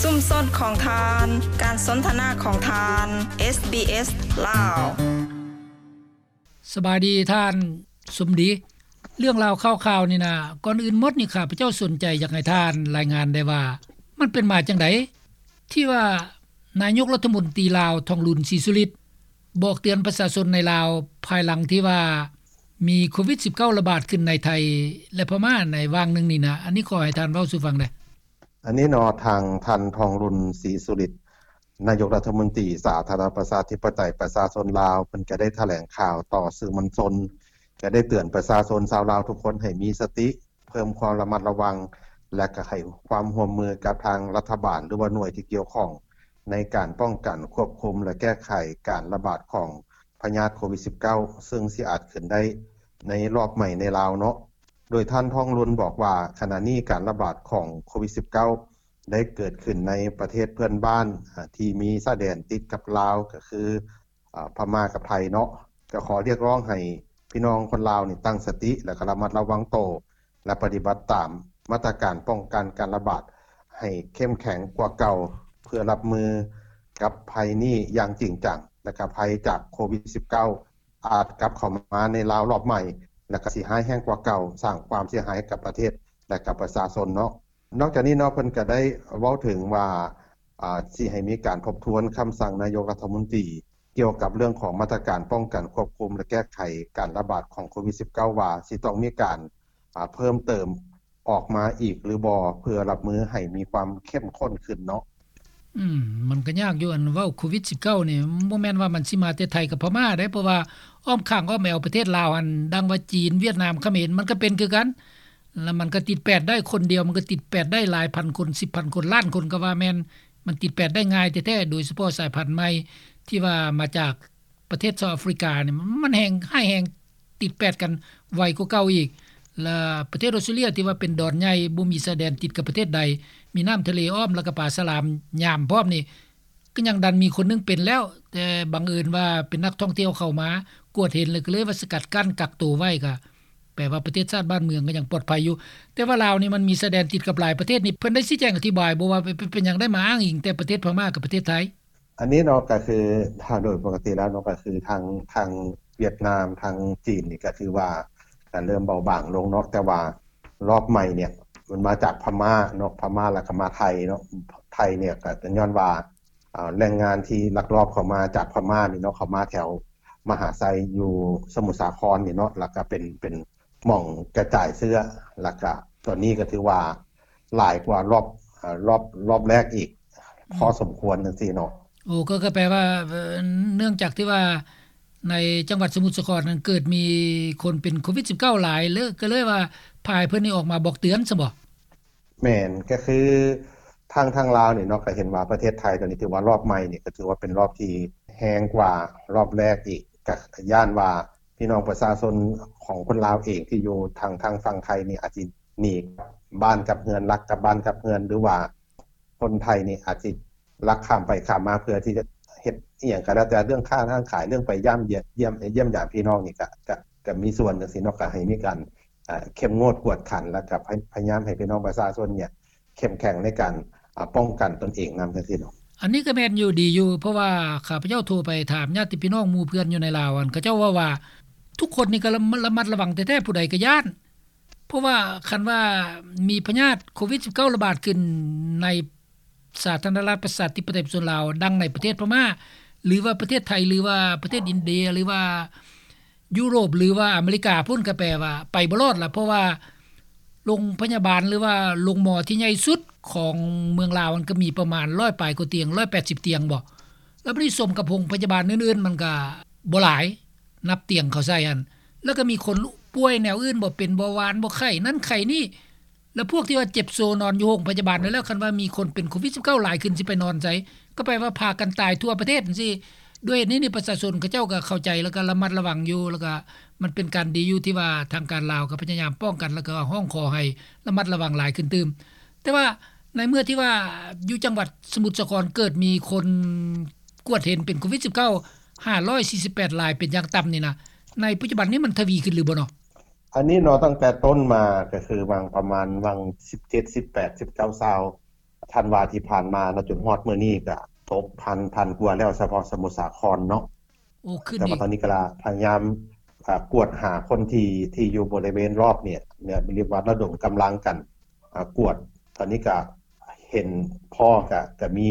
ຊຸມຊົນຂອງທ່ານ, ການສົນທະນາຂອງທ່ານ, ເອສບີເອສ ລາວ. ສະບາຍດີທ່ານສົມດີ. ເລື່ອງລາວຂ່າວໆນີ້ນະ, ກ່ອນອື່ນໝົດນີ້ ຂ້າພະເຈົ້າສົນໃຈຢາກໃຫ້ທ່ານລາຍງານໄດ້ວ່າ ມັນເປັນມາຈັ່ງໃດ ທີ່ວ່ານາຍົກລັດຖະມົນຕີລາວ ທອງລຸນ ສີສຸລິດ ບອກເຕືອນປະຊາຊົນໃນລາວ ພາຍຫຼັງທີ່ວ່າມີໂຄວິດສິບເກົ້າ ລະບາດຂຶ້ນໃນໄທ ແລະ ພະມ້າໃນຫວ່າງໜຶ່ງນີ້ນະ? ອັນນີ້ຂໍໃຫ້ທ່ານເວົ້າສູ່ຟັງແດ່. ອັນນີ້ເນາະ ທາງທ່ານ ທອງລຸນ ສີສຸລິດ ນາຍົກລັດຖະມົນຕີສາທາລະນະລັດປະຊາທິປະໄຕປະຊາຊົນລາວ ເພິ່ນກະໄດ້ຖະແຫຼງຂ່າວຕໍ່ສື່ມວນຊົນ ກະໄດ້ເຕືອນປະຊາຊົນຊາວລາວທຸກຄົນໃຫ້ມີສະຕິ ເພີ່ມຄວາມລະມັດລະວັງ ແລະ ກະໃຫ້ຄວາມຮ່ວມມືກັບທາງລັດຖະບານ ຫຼືວ່າໜ່ວຍທີ່ກ່ຽວຂ້ອງ ໃນການປ້ອງກັນ, ຄວບຄຸມ ແລະ ແກ້ໄຂການລະບາດຂອງພະຍາດໂຄວິດສິບເກົ້າ ເຊິ່ງຊິອາດຂຶ້ນໄດ້ໃນລອບໃໝ່ໃນລາວເນາະ. ໂດຍທ່ານ ທອງລຸນ ບອກວ່າ ຂະນະນີ້ການລະບາດຂອງໂຄວິດສິບເກົ້າ ໄດ້ເກີດຂຶ້ນໃນປະເທດເພື່ອນບ້ານ ອາ ທີ່ມີຊາຍແດນຕິດກັບລາວ ກະຄື ອາ ພະມ້າກັບໄທເນາະ. ກະຂໍຮຽກຮ້ອງໃຫ້ພີ່ນ້ອງຄົນລາວນີ້ຕັ້ງສະຕິ ແລະ ກະລະມັດລະວັງໂຕ ແລະ ປະຕິບັດຕາມມາດຕະການປ້ອງກັນການລະບາດໃຫ້ເຂັ້ມແຂງກວ່າເກົ່າ ເພື່ອຮັບມືກັບໄພນີ້ຢ່າງຈິງຈັງ ແລະ ກະໄພຈາກໂຄວິດສິບເກົ້າ ອາດກັບເຂົ້າມາໃນລາວລອບໃໝ່ ແລະ ກະຊິຮ້າຍແຮງກວ່າເກົ່າ ສ້າງຄວາມເສຍຫາຍໃຫ້ກັບປະເທດ ແລະ ກັບປະຊາຊົນເນາະ. ນອກຈາກນີ້ເນາະ ເພິ່ນກະໄດ້ເວົ້າເຖິງວ່າ ອາ ຊິໃຫ້ມີການທົບທວນຄຳສັ່ງນາຍົກລັດຖະມົນຕີ ກ່ຽວກັບເລື່ອງຂອງມາດຕະການປ້ອງກັນ, ຄວບຄຸມ ແລະ ແກ້ໄຂການລະບາດຂອງໂຄວິດສິບເກົ້າ ວ່າຊິຕ້ອງມີການ ອາ ເພີ່ມເຕີມອອກມາອີກຫຼືບໍ່ ເພື່ອຮັບມືໃຫ້ມີຄວາມເຂັ້ມຂຸ້ນຂຶ້ນເນາະ. ອືມ ມັນກະຍາກຢູ່ ອັນເວົ້າໂຄວິດສິບເກົ້ານີ້ ບໍ່ແມ່ນວ່າມັນຊິມາແຕ່ໄທກັບພະມ້າເດ້ ເພາະວ່າອ້ອມຂ້າງອ້ອມແອວປະເທດລາວຫັ້ນ ດັ່ງວ່າຈີນ, ຫວຽດນາມ, ຂະເໝນ ມັນກະເປັນຄືກັນ ລະມັນກະຕິດແປດໄດ້ ຄົນດຽວມັນກະຕິດແປດໄດ້ຫຼາຍພັນຄົນ ສິບພັນຄົນ ລ້ານຄົນກະວ່າແມ່ນ ມັນຕິດແປດໄດ້ງ່າຍແທ້ໆ ໂດຍສະເພາະສາຍພັນໃໝ່ທີ່ວ່າມາຈາກ ປະເທດເຊົາອາຟຣິການີ້ ມັນແຮງຮ້າຍແຮງ ຕິດແປດກັນໄວກວ່າເກົ່າອີກ ແລະ ປະເທດອອສເຕຣເລັຍທີ່ວ່າເປັນດອນໃຫຍ່ ບໍ່ມີຊາຍແດນຕິດກັບປະເທດໃດ ມີນ້ຳທະເລອ້ອມ ແລ້ວກະປາສະຫຼາມຍາມພ້ອມນີ້ ກະຍັງດັນມີຄົນໜຶ່ງເປັນແລ້ວ ແຕ່ບັງເອີນວ່າເປັນນັກທ່ອງທ່ຽວເຂົ້າມາ ກວດເຫັນ ແລ້ວກະເລີຍວ່າສະກັດກັ້ນ ກັກໂຕໄວ້ ກະແປວ່າປະເທດຊາດບ້ານເມືອງກະຍັງປອດໄພຢູ່ ແຕ່ວ່າລາວນີ້ມັນມີຊາຍແດນຕິດກັບຫຼາຍປະເທດນີ້ ເພິ່ນໄດ້ຊີ້ແຈງອະທິບາຍບໍ່ວ່າ ເປັນ ເປັນຫຍັງໄດ້ມາອ້າງອີງແຕ່ປະເທດພະມ້າກັບປະເທດໄທ? ອັນນີ້ເນາະ ກະຄື ຖ້າໂດຍປົກກະຕິແລ້ວເນາະ ກະຄືທາງ ທາງຫວຽດນາມ ທາງຈີນນີ້ກະຖືວ່າກະເລີ່ມເບົາບາງລົງເນາະ ແຕ່ວ່າລອບໃໝ່ເນຍ ມັນມາຈາກພະມ້າເນາະ ພະມ້າ ແລ້ວກະມາໄທເນາະ ໄທເນຍກະຍ້ອນວ່າ ອາ ແຫຼ່ງງານທີ່ລັກລອບເຂົ້າມາຈາກພະມ້ານີ້ເນາະ ເຂົ້າມາແຖວມະຫາໄຊຢູ່ສະໝຸດສາຄອນນີ້ເນາະ ແລ້ວກະເປັນ ເປັນ ໝ່ອງກະຈາຍເຊື້ອ ແລ້ວກະຕອນນີ້ກະຖືວ່າຫຼາຍກວ່າລອບ ອາ ລອບ ລອບແລກອີກ ອືມ ພໍສົມຄວນຈັ່ງຊີ້ເນາະ. ໂອ້ ກໍ ກໍແປວ່າ ເອີ ເນື່ອງຈາກທີ່ວ່າໃນຈັງຫວັດສະໝຸດສາຄອນນັ້ນເກີດມີຄົນເປັນໂຄວິດສິບເກົ້າຫຼາຍ ເລີຍ ກໍເລີຍວ່າພາໃຫ້ເພິ່ນນີ້ອອກມາບອກເຕືອນຊັ້ນບໍ? ແມ່ນ ກະຄືທາງ ທາງລາວນີ້ເນາະ ກະເຫັນວ່າປະເທດໄທຕອນນີ້ຖືວ່າລອບໃໝ່ນີ້ ກະຖືວ່າເປັນລອບທີ່ແຮງກວ່າລອບແລກອີກ ກະຢ້ານວ່າ ພີ່ນ້ອງປະຊາຊົນຂອງຄົນລາວເອງທີ່ຢູ່ທາງ ທາງຝັ່ງໄທນີ້ອາດຊິໜີກັບບ້ານກັບເຮືອນ ລັກກັບບ້ານກັບເຮືອນ ຫຼືວ່າຄົນໄທນີ້ອາດຊິລັກຂ້າມໄປຂ້າມມາ ເພື່ອທີ່ຈະເຮັດອີ່ຫຍັງກະແລ້ວແຕ່ ເລື່ອງຄ້າຮ້ານຂາຍ ເລື່ອງໄປຢ້າມຢຽມ ຢ້ຽມຢາມພີ່ນ້ອງນີ້ກະ ກະ ກະມີສ່ວນຈັ່ງຊີ້ເນາະ ກະໃຫ້ມີການ ອາ ເຂັ້ມງວດກວດຂັນ ແລ້ວກະພະ ພະຍາຍາມໃຫ້ພີ່ນ້ອງປະຊາຊົນເນຍ ເຂັ້ມແຂງໃນການ ອາ ປ້ອງກັນຕົນເອງນຳ ຈັ່ງຊີ້ເນາະ. ອັນນີ້ກະແມ່ນຢູ່ ດີຢູ່ ເພາະວ່າຂ້າພະເຈົ້າໂທໄປຖາມຍາດຕິພີ່ນ້ອງໝູ່ເພື່ອນຢູ່ໃນລາວ ອັນເຂົາເຈົ້າເວົ້າວ່າ ທຸກຄົນນີ້ກະລະ ລະມັດລະວັງແທ້ໆ ຜູ້ໃດກະຢ້ານ ເພາະວ່າຄັນວ່າມີພະຍາດໂຄວິດສິບເກົ້າລະບາດຂຶ້ນໃນສາທາລະນະລັດປະຊາທິປະໄຕປະຊາຊົນລາວ ດັ່ງໃນປະເທດພະມ້າ ຫຼືວ່າປະເທດໄທ ຫຼືວ່າປະເທດອິນເດຍ ຫຼືວ່າ ຢູໂຣບ ຫຼືວ່າອາເມລິກາພຸ້ນ ກະແປວ່າໄປບໍ່ລອດລະ ເພາະວ່າໂລງພະຍາບານ ຫຼືວ່າໂລງໝໍທີ່ໃຫຍ່ສຸດຂອງເມືອງລາວ ມັນກະມີປະມານຮ້ອຍປາຍກວ່າຕຽງ ຮ້ອຍແປດສິບຕຽງບໍ ແລ້ວບາດນີ້ສົມກັບໂຮງພະຍາບານອື່ນໆ ມັນກະບໍ່ຫຼາຍ ນັບຕຽງເຂົາໃສ່ຫັ້ນ ແລ້ວກະມີຄົນປ່ວຍແນວອື່ນບໍ ເປັນເບົາຫວານບໍ ໄຂ້ນັ້ນໄຂ້ນີ້ ແລ້ວພວກທີ່ວ່າເຈັບໂຊນອນຢູ່ໂຮງພະຍາບານນັ້ນແລ້ວ ຄັນວ່າມີຄົນເປັນໂຄວິດສິບເກົ້າຫຼາຍຂຶ້ນ ຊິໄປນອນໃສ? ກໍແປວ່າພາກັນຕາຍທົ່ວປະເທດຈັ່ງຊີ້. ດ້ວຍເຫດນີ້ນີ້ ປະຊາຊົນເຂົາເຈົ້າກໍເຂົ້າໃຈ ແລ້ວກໍລະມັດລະວັງຢູ່ ແລ້ວກໍມັນເປັນການດີຢູ່ທີ່ວ່າທາງການລາວກໍພະຍາຍາມປ້ອງກັນ ແລ້ວກໍຮ້ອງຂໍໃຫ້ລະມັດລະວັງຫຼາຍຂຶ້ນຕື່ມ. ແຕ່ວ່າໃນເມື່ອທີ່ວ່າຢູ່ຈັງຫວັດສະໝຸດສາຄອນເກີດມີຄົນກວດເຫັນເປັນໂຄວິດສິບເກົ້າ ຫ້າຮ້ອຍສີ່ສິບແປດລາຍເປັນຢ່າງຕ່ຳນີ້ນະ ໃນປັດຈຸບັນນີ້ມັນທະວີຂຶ້ນຫຼືບໍ່ເນາະ? ອັນນີ້ເນາະ ຕັ້ງແຕ່ຕົ້ນມາກໍຄືຫວ່າງປະມານຫວ່າງສິບເຈັດ ສິບແປດ ສິບເກົ້າ ຊາວ ທັນວາທີ່ຜ່ານມາເນາະ ຈົນຮອດມື້ນີ້ກະຕົກພັນ ພັນກວ່າແລ້ວ ສະເພາະສະມຸດສາຄອນເນາະ. ໂອ້ ຂຶ້ນອີກ. ແຕ່ວ່າຕອນນີ້ກະພະຍາຍາມ ອ່າ ກວດຫາຄົນທີ່ ທີ່ຢູ່ບໍລິເວນລອບນີ້ ເນຍ ເອີ້ນວ່າລະດົມກຳລັງກັນ ອ່າ ກວດ. ຕອນນີ້ກະເຫັນພໍ້ ກະ ກະມີ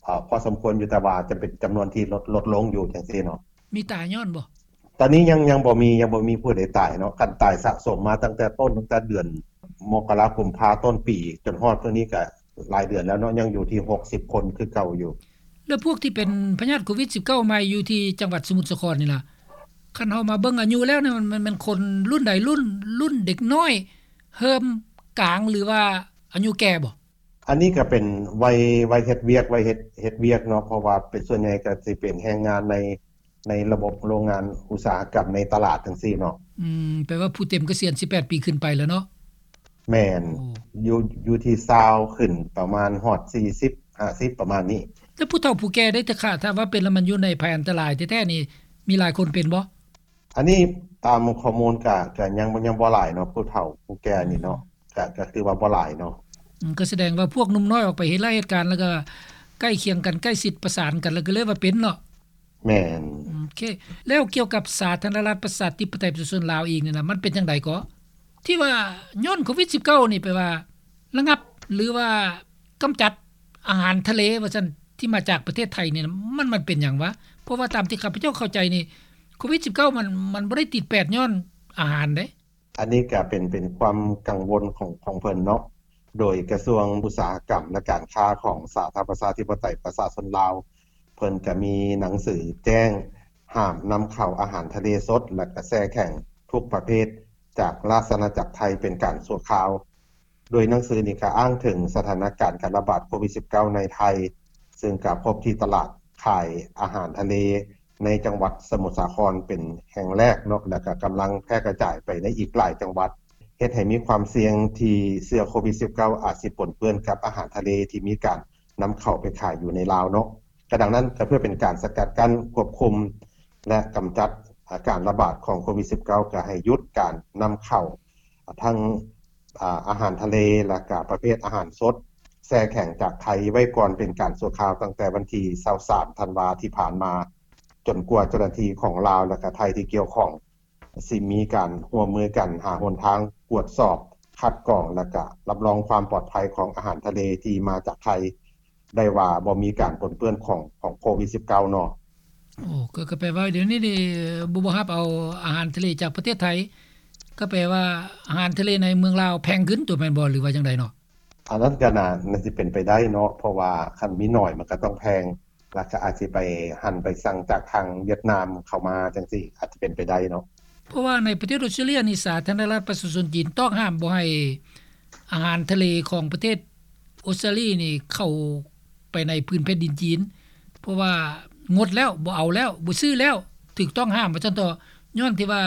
ເອີ ພໍສົມຄວນຢູ່ ແຕ່ວ່າຈະເປັນຈຳນວນທີ່ລົດ ລົດລົງຢູ່ຈັ່ງຊີ້ເນາະ. ມີຕາຍຍ້ອນບໍ່? ຕອນນີ້ຍັງ ຍັງບໍ່ມີ ຍັງບໍ່ມີຜູ້ໃດຕາຍເນາະ. ຄັນຕາຍສະສົມມາຕັ້ງແຕ່ຕົ້ນ ຕັ້ງແຕ່ເດືອນມົກກະລາ ກຸມພາ ຕົ້ນປີ ຈົນຮອດມື້ນີ້ກະຫຼາຍເດືອນແລ້ວເນາະ ຍັງຢູ່ທີ່ຫົກສິບຄົນຄືເກົ່າຢູ່. ແລ້ວພວກທີ່ເປັນພະຍາດໂຄວິດສິບເກົ້າໃໝ່ຢູ່ທີ່ຈັງຫວັດສະໝຸດສາຄອນນີ້ລະ ຄັນເຮົາມາເບິ່ງອາຍຸແລ້ວນີ້ ມັນ ມັນ ມັນຄົນລຸ້ນໃດ ລຸ້ນ ລຸ້ນເດັກນ້ອຍ ເລີ່ມກາງ ຫຼືວ່າອາຍຸແກ່ບໍ່? ອັນນີ້ກະເປັນໄວ ໄວເຮັດວຽກ ໄວເຮັດ ເຮັດວຽກເນາະ ເພາະວ່າເປັນ ສ່ວນໃຫຍ່ກະຊິເປັນແຮງງານໃນ ໃນລະບົບໂລງງານອຸດສາຫະກຳໃນຕະຫຼາດຈັ່ງຊີ້ເນາະ. ອືມ ແປວ່າຜູ້ເຕັມກະສຽນສິບແປດປີຂຶ້ນໄປແລ້ວເນາະ? ແມ່ນ. ໂອ້ ຢູ່ ຢູ່ທີ່ຊາວຂຶ້ນປະມານຮອດສີ່ສິບ ຫ້າສິບ ປະມານນີ້. ແລ້ວຜູ້ເຖົ້າຜູ້ແກ່ເດ ຖ້າ ຖ້າວ່າເປັນແລ້ວມັນຢູ່ໃນໄພອັນຕະລາຍແທ້ໆນີ້ ມີຫຼາຍຄົນເປັນບໍ່? ອັນນີ້ຕາມຂໍ້ມູນກະ ກະຍັງ ຍັງບໍ່ຫຼາຍເນາະ ຜູ້ເຖົ້າຜູ້ແກ່ນີ້ເນາະ ກະ ກະຖືວ່າບໍ່ຫຼາຍເນາະ. ອືມ ກະສະແດງວ່າພວກໜຸ່ມນ້ອຍອອກໄປເຮັດລາຍເຮັດການ ແລ້ວກະໃກ້ຄຽງກັນ ໃກ້ຊິດປະສານກັນ ແລ້ວກະເລີຍວ່າເປັນເນາະ. ແມ່ນ. ໂອເຄ ແລ້ວກ່ຽວກັບສາທາລະນະລັດປະຊາທິປະໄຕປະຊາຊົນລາວອີກນີ້ນະ ມັນເປັນຈັ່ງໃດເກາະ ທີ່ວ່າຍ້ອນໂຄວິດສິບເກົ້ານີ້ ແປວ່າລະງັບ ຫຼືວ່າກຳຈັດອາຫານທະເລວ່າຊັ້ນ ທີ່ມາຈາກປະເທດໄທນີ້ນະ ມັນ ມັນເປັນຫຍັງວະ? ເພາະວ່າຕາມທີ່ຂ້າພະເຈົ້າເຂົ້າໃຈນີ້ ໂຄວິດສິບເກົ້າມັນ ມັນບໍ່ໄດ້ຕິດແປດຍ້ອນອາຫານເດ້. ອັນນີ້ກະເປັນ ເປັນຄວາມກັງວົນຂອງ ຂອງເພິ່ນເນາະ. ໂດຍກະຊວງອຸດສາຫະກຳ ແລະ ການຄ້າຂອງສາທາລະນະລັດປະຊາທິປະໄຕປະຊາຊົນລາວ ເພິ່ນກະມີໜັງສືແຈ້ງຫ້າມນຳເຂົ້າອາຫານທະເລສົດ ແລະ ກະແຊ່ແຂງທຸກປະເພດຈາກລາຊະອານາຈັກໄທເປັນການຊົ່ວຄາວ. ໂດຍໜັງສືນີ້ກະອ້າງເຖິງສະຖານະການການລະບາດໂຄວິດສິບເກົ້າໃນໄທ ເຊິ່ງກະພົບທີ່ຕະຫຼາດຂາຍອາຫານທະເລ ໃນຈັງຫວັດສະໝຸດສາຄອນເປັນແຫ່ງແລກເນາະ ແລ້ວກະກຳລັງແຜ່ກະຈາຍໄປໃນອີກຫຼາຍຈັງຫວັດ ເຮັດໃຫ້ມີຄວາມສ່ຽງທີ່ເຊື້ອໂຄວິດສິບເກົ້າອາດຊິປົນເປື້ອນກັບອາຫານທະເລທີ່ມີການນຳເຂົ້າໄປຂາຍຢູ່ໃນລາວເນາະ. ກະດັ່ງນັ້ນ ກະເພື່ອເປັນການສະກັດກັ້ນ ຄວບຄຸມ ແລະ ກຳຈັດ ອາ ການລະບາດຂອງໂຄວິດສິບເກົ້າ ກະໃຫ້ຢຸດການນຳເຂົ້າ ອາ ທັງ ອາ ອາຫານທະເລ ແລະ ກະປະເພດອາຫານສົດ ແຊ່ແຂງຈາກໄທໄວ້ກ່ອນເປັນການຊົ່ວຄາວ ຕັ້ງແຕ່ວັນທີຊາວສາມທັນວາທີ່ຜ່ານມາ ຈົນກວ່າເຈົ້າໜ້າທີ່ຂອງລາວ ແລະ ກະໄທທີ່ກ່ຽວຂ້ອງ ຊິມີການຮ່ວມມືກັນຫາຫົນທາງກວດສອບ ຄັດກອງ ແລະ ກະຮັບຮອງຄວາມປອດໄພຂອງອາຫານທະເລທີ່ມາຈາກໄທ ໄດ້ວ່າບໍ່ມີການປົນເປື້ອນຂອງ ຂອງໂຄວິດສິບເກົ້າເນາະ. ໂອ້ ກະ ກະແປວ່າດຽວນີ້ນີ້ ບໍ່ ບໍ່ຮັບເອົາອາຫານທະເລຈາກປະເທດໄທ ກະແປວ່າອາຫານທະເລໃນເມືອງລາວແພງຂຶ້ນຕົວະແມ່ນບໍ່ ຫຼືວ່າຈັ່ງໃດເນາະ? ອັນນັ້ນກະໜ້າ ໜ້າຊິເປັນໄປໄດ້ເນາະ ເພາະວ່າຄັນມີໜ້ອຍມັນກະຕ້ອງແພງ ແລ້ວກະອາດຊິໄປ ຫັນໄປສັ່ງຈາກທາງຫວຽດນາມເຂົ້າມາຈັ່ງຊີ້ ອາດຈະເປັນໄປໄດ້ເນາະ. ເພາະວ່າໃນປະເທດອົດສະຕຣາລີຍນີ້ ສາທາລະນະລັດປະຊາຊົນຈີນຕ້ອງຫ້າມບໍ່ໃຫ້ອາຫານທະເລຂອງປະເທດອົດສະຕຣາລີຍນີ້ເຂົ້າໄປໃນພື້ນແຜ່ນດິນຈີນ ເພາະວ່າງົດແລ້ວ ບໍ່ເອົາແລ້ວ ບໍ່ຊື້ແລ້ວ ຖືກຕ້ອງຫ້າມວ່າຊັ້ນເຖາະ ຍ້ອນທີ່ວ່າ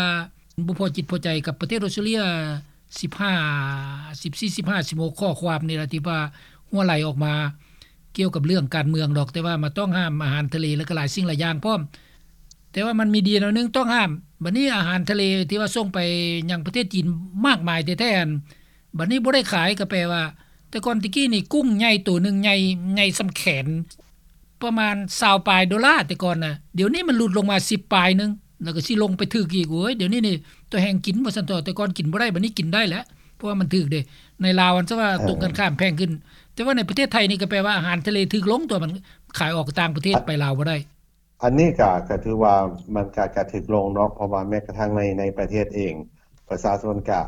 ບໍ່ພໍຈິດພໍໃຈກັບປະເທດອົດສະຕຣາລີຍ ສິບຫ້າ ສິບສີ່ ສິບຫ້າ ສິບຫົກ ຂໍ້ຄວາມນີ້ລະ ທີ່ວ່າຮົ່ວໄຫຼອອກມາ ກ່ຽວກັບເລື່ອງການເມືອງດອກ ແຕ່ວ່າມາຕ້ອງຫ້າມອາຫານທະເລ ແລ້ວກໍຫຼາຍສິ່ງຫຼາຍຢ່າງພ້ອມ. ແຕ່ວ່າມັນມີດີແນວໜຶ່ງຕ້ອງຫ້າມ ບັດນີ້ອາຫານທະເລທີ່ວ່າສົ່ງໄປຍັງປະເທດຈີນມາກມາຍແທ້ໆ ອັນ ບັດນີ້ບໍ່ໄດ້ຂາຍ ກໍແປວ່າ ແຕ່ກ່ອນແຕ່ກີ້ນີ້ ກຸ້ງໃຫຍ່ໂຕໜຶ່ງໃຫຍ່ ໃຫຍ່ສ່ຳແຂນ ປະມານຊາວປາຍໂດລາ ແຕ່ກ່ອນນະ ດຽວນີ້ມັນຫຼຸດລົງມາສິບປາຍໜຶ່ງ ແລ້ວກໍຊິລົງໄປຖືກອີກ. ໂອ້ຍ ດຽວນີ້ນີ້ ຕໍ່ແຮງກິນວ່າຊັ້ນເຖາະ ແຕ່ກ່ອນກິນບໍ່ໄດ້ ບັດນີ້ກິນໄດ້ແລ້ວ ເພາະວ່າມັນຖືກເດ້. ໃນລາວ ອັນ ສະວ່າ ເອີ ຕົງກັນຂ້າມແພງຂຶ້ນ ແຕ່ວ່າໃນປະເທດໄທນີ້ກໍແປວ່າອາຫານທະເລຖືກລົງ ຕົວະ ມັນຂາຍອອກຕ່າງປະເທດ ໄປລາວບໍ່ໄດ້. ອັນນີ້ກະ ກະຖືວ່າມັນກະ ກະຖືກລົງເນາະ ເພາະວ່າແມ້ກະທັ່ງໃນ ໃນປະເທດເອງ ປະຊາຊົນກະ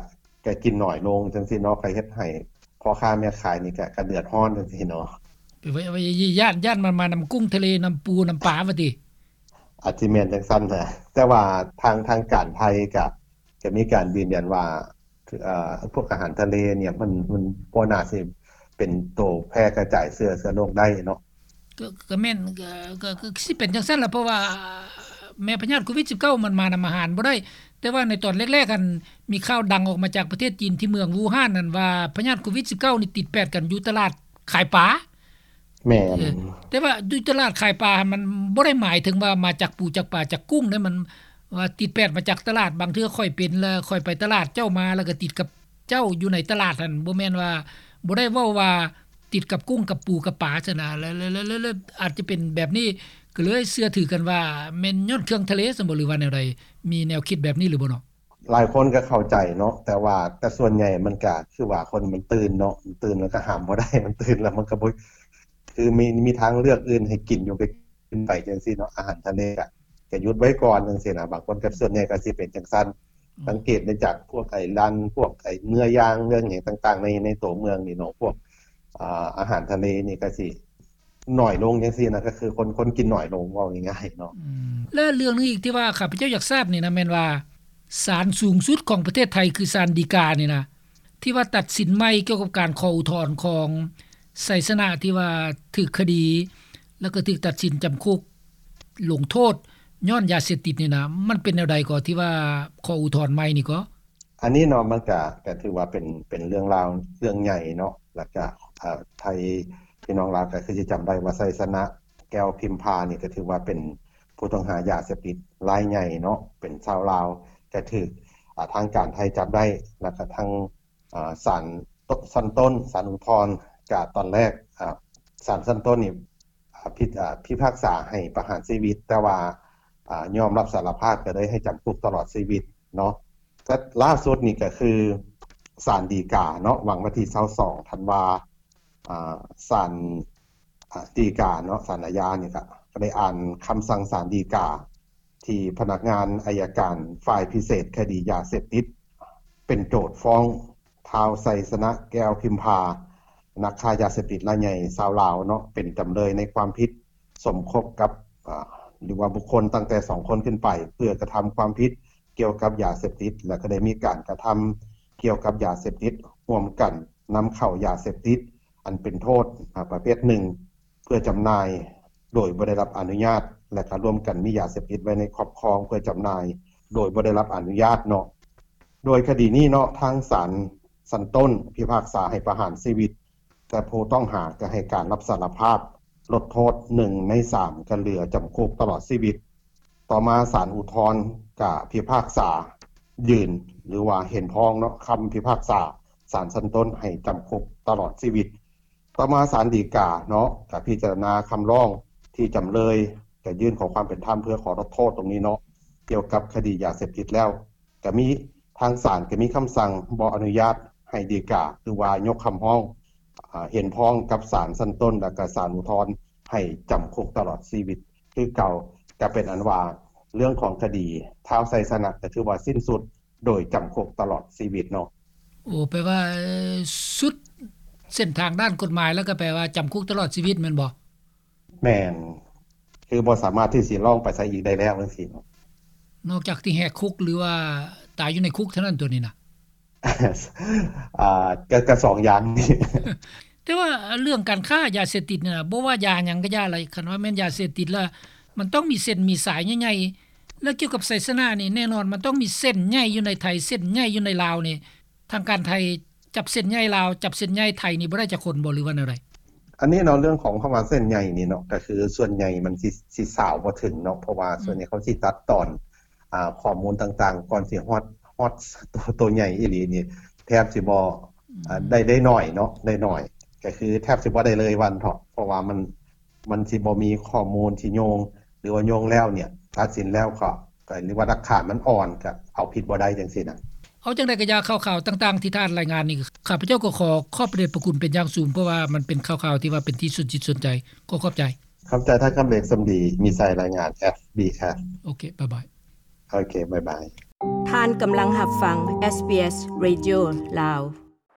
ກະກິນໜ້ອຍລົງຈັ່ງຊີ້ເນາະ ກະເຮັດໃຫ້ພໍ່ຄ້າແມ່ຂາຍນີ້ກະ ກະເດືອດຮ້ອນຈັ່ງຊີ້ເນາະ. ແປວ່າ ຢ້ານ ຢ້ານມັນມານຳກຸ້ງທະເລ ນຳປູ ນຳປາວ່າຕິ? ອາດຊິແມ່ນຈັ່ງຊັ້ນນະ ແຕ່ວ່າທາງ ທາງການໄທກະ ກະມີການຢືນຢັນວ່າ ເອີ ພວກອາຫານທະເລນີ້ ມັນ ມັນບໍ່ໜ້າຊິເປັນໂຕແຜ່ກະຈາຍເຊື້ອ ເຊື້ອໂລກໄດ້ເນາະ. ກໍ ກໍແມ່ນ ກໍ ກໍ ກໍຊິເປັນຈັ່ງຊັ້ນລະ ເພາະວ່າແມ່ພະຍາດໂຄວິດສິບເກົ້າ ມັນມານຳອາຫານບໍ່ໄດ້. ແຕ່ວ່າໃນຕອນແລກໆ ຫັ້ນ ມີຂ່າວດັງອອກມາຈາກປະເທດຈີນ ທີ່ເມືອງວູຮານນັ້ນວ່າ ພະຍາດໂຄວິດສິບເກົ້ານີ້ຕິດແປດກັນຢູ່ຕະຫຼາດຂາຍປາ. ແມ່ນ ເອີ ແຕ່ວ່າຢູ່ຕະຫຼາດຂາຍປາຫັ້ນ ມັນບໍ່ໄດ້ໝາຍເຖິງວ່າມາຈາກປູ ຈາກປາ ຈາກກຸ້ງເດ້ ມັນວ່າຕິດແປດມາຈາກຕະຫຼາດ. ບາງເທື່ອຂ້ອຍເປັນ ແລ້ວຂ້ອຍໄປຕະຫຼາດ ເຈົ້າມາ ແລ້ວກໍຕິດກັບເຈົ້າຢູ່ໃນຕະຫຼາດຫັ້ນ ບໍ່ແມ່ນວ່າ ບໍ່ໄດ້ເວົ້າວ່າ ຕິດກັບກຸ້ງກັບປູກັບປາຊັ້ນນະ ແລະ ແລະ ແລະ ແລະ ອາດຈະເປັນແບບນີ້ ກໍເລີຍເຊື່ອຖືກັນວ່າແມ່ນຍ້ອນເຄື່ອງທະເລຊັ້ນບໍ່ ຫຼືວ່າແນວໃດ? ມີແນວຄິດແບບນີ້ຫຼືບໍ່ເນາະ? ຫຼາຍຄົນກໍເຂົ້າໃຈເນາະ ແຕ່ວ່າ ແຕ່ສ່ວນໃຫຍ່ມັນກໍຄືວ່າຄົນມັນຕື່ນເນາະ ມັນຕື່ນແລ້ວກໍຫ້າມບໍ່ໄດ້ ມັນຕື່ນແລ້ວມັນກໍບໍ່ ຄືມີ ມີທາງເລືອກອື່ນໃຫ້ກິນຢູ່ ກໍກິນໄປຈັ່ງຊີ້ເນາະ ອາຫານທະເລກໍ ກໍຢຸດໄວ້ກ່ອນຈັ່ງຊີ້ນະ ບາງຄົນກໍ ສ່ວນໃຫຍ່ກໍຊິເປັນຈັ່ງຊັ້ນ ອືມ ສັງເກດໄດ້ຈາກພວກໄອ້ຮ້ານ ພວກໄອ້ເນື້ອຢ່າງ ເນື້ອຫຍັງຕ່າງໆ ໃນ ໃນຕົວເມືອງນີ້ເນາະ ພວກ ອ່າ ອາຫານທະເລນີ້ກໍຊິໜ້ອຍລົງຈັ່ງຊີ້ນະ ກໍຄືຄົນ ຄົນກິນໜ້ອຍລົງ ເວົ້າງ່າຍໆເນາະ. ອືມ ແລະເລື່ອງໜຶ່ງອີກທີ່ວ່າຂ້າພະເຈົ້າຢາກຊາບນີ້ນະ ແມ່ນວ່າ ສານສູງສຸດຂອງປະເທດໄທ ຄືສານฎີການີ້ນະ ທີ່ວ່າຕັດສິນໃໝ່ກ່ຽວກັບການຂໍອຸທອນຂອງໄຊຊະນະທີ່ວ່າຖືກຄະດີ ແລ້ວກໍຖືກຕັດສິນຈຳຄຸກລົງໂທດຍ້ອນຢາເສບຕິດນີ້ນະ ມັນເປັນແນວໃດກໍ ທີ່ວ່າຂໍອຸທອນໃໝ່ນີ້ກໍ? ອັນນີ້ເນາະ ມັນກະ ກະຖືວ່າເປັນ ເປັນເລື່ອງລາວເລື່ອງໃຫຍ່ເນາະ ແລ້ວກະ ເອີ ໄທ ພີ່ນ້ອງລາວກະຄືຊິຈຳໄດ້ວ່າ ໄຊຊະນະ ແກ້ວພິມພານີ້ ກະຖືວ່າເປັນຜູ້ຕ້ອງຫາຢາເສບຕິດລາຍໃຫຍ່ເນາະ ເປັນຊາວລາວ ກະຖືກ ອ່າ ທາງການໄທຈັບໄດ້ ແລ້ວກະທາງ ອ່າ ສານ ຊັ້ນຕົ້ນ ສານອຸທອນ ກະຕອນແລກ ອ່າ ສານຊັ້ນຕົ້ນນີ້ ອ່າ ພິ ອ່າ ພິພາກສາໃຫ້ປະຫານຊີວິດ ແຕ່ວ່າ ອ່າ ຍອມຮັບສາລະພາບ ກໍໄດ້ໃຫ້ຈຳຄຸກຕະຫຼອດຊີວິດເນາະ. ແຕ່ລ່າສຸດນີ້ກໍຄືສານฎີກາເນາະ ຫວ່າງວັນທີຊາວສອງທັນວາ ອ່າ ສານ ອ່າ ฎີກາເນາະ ສານອາຍານີ້ກໍ ກໍໄດ້ອ່ານຄຳສັ່ງສານฎີກາ ທີ່ພະນັກງານໄອຍະການຝ່າຍພິເສດຄະດີຢາເສບຕິດ ເປັນໂຈດຟ້ອງ ທ້າວ ໄຊຊະນະ ແກ້ວພິມພາ ນັກຄ້າຢາເສບຕິດລາຍໃຫຍ່ຊາວລາວເນາະ ເປັນຈຳເລີຍໃນຄວາມຜິດສົມຄົບກັບ ອ່າ ຫຼືວ່າບຸກຄົນຕັ້ງແຕ່ສອງຄົນຂຶ້ນໄປ ເພື່ອກະທຳຄວາມຜິດກ່ຽວກັບຢາເສບຕິດ ແລະ ກໍໄດ້ມີການກະທຳກ່ຽວກັບຢາເສບຕິດຮ່ວມກັນ ນຳເຂົ້າຢາເສບຕິດອັນເປັນໂທດ ອາ ປະເພດໜຶ່ງ ເພື່ອຈຳໜ່າຍໂດຍບໍ່ໄດ້ຮັບອະນຸຍາດ ແລະ ກໍຮ່ວມກັນມີຢາເສບຕິດໄວ້ໃນຄອບຄອງເພື່ອຈຳໜ່າຍໂດຍບໍ່ໄດ້ຮັບອະນຸຍາດເນາະ. ໂດຍຄະດີນີ້ເນາະ ທາງສານຊັ້ນຕົ້ນພິພາກສາໃຫ້ປະຫານຊີວິດ ແຕ່ຜູ້ຕ້ອງຫາກໍໃຫ້ການຮັບສາລະພາບ ລົດໂທດໜຶ່ງໃນສາມ ກໍເຫຼືອຈຳຄຸກຕະຫຼອດຊີວິດ. ຕໍ່ມາສານອຸທອນກໍພິພາກສາຢືນ ຫຼືວ່າເຫັນພ້ອງເນາະ ຄຳພິພາກສາສານຊັ້ນຕົ້ນໃຫ້ຈຳຄຸກຕະຫຼອດຊີວິດ. ຕໍ່ມາສານฎີກາເນາະ ກໍພິຈາລະນາຄຳຮ້ອງທີ່ຈຳເລີຍຈະຍື່ນຂໍຄວາມເປັນທຳເພື່ອຂໍລົດໂທດຕົງນີ້ເນາະ ກ່ຽວກັບຄະດີຢາເສບຕິດແລ້ວ ກໍມີ ທາງສານກໍມີຄຳສັ່ງບໍ່ອະນຸຍາດໃຫ້ດີກາ ຫຼືວ່າຍົກຄຳຮ້ອງ ອາ ເຫັນພ້ອງກັບສານຊັ້ນຕົ້ນ ແລະ ກະສານອຸທອນໃຫ້ຈຳຄຸກຕະຫຼອດຊີວິດຄືເກົ່າ. ກໍເປັນອັນວ່າເລື່ອງຂອງຄະດີທ້າວໄຊຊະນະ ກໍຖືວ່າສິ້ນສຸດໂດຍຈຳຄຸກຕະຫຼອດຊີວິດເນາະ. ໂອ້ ແປວ່າ ເອີ ສຸດເສັ້ນທາງດ້ານກົດໝາຍ ແລ້ວກໍແປວ່າຈຳຄຸກຕະຫຼອດຊີວິດແມ່ນບໍ່? ແມ່ນ ຄືບໍ່ສາມາດທີ່ຊິລອງໄປໃສອີກໄດ້ແລ້ວຈັ່ງຊີ້ເນາະ. ນອກຈາກທີ່ແຫກຄຸກ ຫຼືວ່າຕາຍຢູ່ໃນຄຸກເທົ່ານັ້ນຕົວນີ້ນະ? ອ່າ ກະ ກະສອງຢ່າງນີ້. ແຕ່ວ່າເລື່ອງການຄ້າຢາເສບຕິດນີ້ນະ ບໍ່ວ່າຢາຫຍັງກໍຢ່າລະ ຄັນວ່າແມ່ນຢາເສບຕິດລະ ມັນຕ້ອງມີເສັ້ນມີສາຍໃຫຍ່ໆ ແລະ ກ່ຽວກັບໄຊຊະນະນີ້ ແນ່ນອນມັນຕ້ອງມີເສັ້ນໃຫຍ່ຢູ່ໃນໄທ ເສັ້ນໃຫຍ່ຢູ່ໃນລາວນີ້ ທາງການໄທຈັບເສັ້ນໃຫຍ່ລາວ ຈັບເສັ້ນໃຫຍ່ໄທນີ້ບໍ່ໄດ້ຈັກຄົນບໍ່ ຫຼືວ່າແນວໃດ? ອັນນີ້ເນາະ ເລື່ອງຂອງຄຳວ່າເສັ້ນໃຫຍ່ນີ້ເນາະ ກໍຄືສ່ວນໃຫຍ່ມັນຊິ ຊິສາວບໍ່ເຖິງເນາະ ເພາະວ່າ ອືມ ສ່ວນໃຫຍ່ເຂົາຊິຕັດຕອນ ອ່າ ຂໍ້ມູນຕ່າງໆ ກ່ອນຊິຮອດ ຮອດໂຕ ໂຕໃຫຍ່ອີ່ຫຼີນີ້ ແທບຊິບໍ່ ອືມ ອ່າ ໄດ້ ໄດ້ໜ້ອຍເນາະ ໄດ້ໜ້ອຍ ກໍຄືແທບຊິບໍ່ໄດ້ເລີຍວ່າຊັ້ນເຖາະ ເພາະວ່າມັນ ມັນຊິບໍ່ມີຂໍ້ມູນທີ່ໂຍງ ຫຼືວ່າໂຍງແລ້ວເນ່ຍ ຕັດສິນແລ້ວກໍ ກໍ ຫຼືວ່າຫຼັກຖານມັນອ່ອນ ກໍເອົາຜິດບໍ່ໄດ້ຈັ່ງຊີ້ນະ. ເອົາຈັ່ງໃດກໍຢ່າ ຂ່າວໆຕ່າງໆທີ່ທ່ານລາຍງານນີ້ ຂ້າພະເຈົ້າກໍຂໍຂອບພະເດດພະຄຸນເປັນຢ່າງສູງ ເພາະວ່າມັນເປັນຂ່າວໆທີ່ວ່າເປັນທີ່ສົນຈິດສົນໃຈ. ຂໍຂອບໃຈ. ຂອບໃຈທ່ານຄຳເລັກ ສົມດີ ມີໄຊ ລາຍງານ ເອັສບີເອັສ. ໂອເຄ ບາຍບາຍ. ໂອເຄ ບາຍບາຍ. ທ່ານກຳລັງຮັບຟັງ ເອສບີເອສ Radio ລາວ.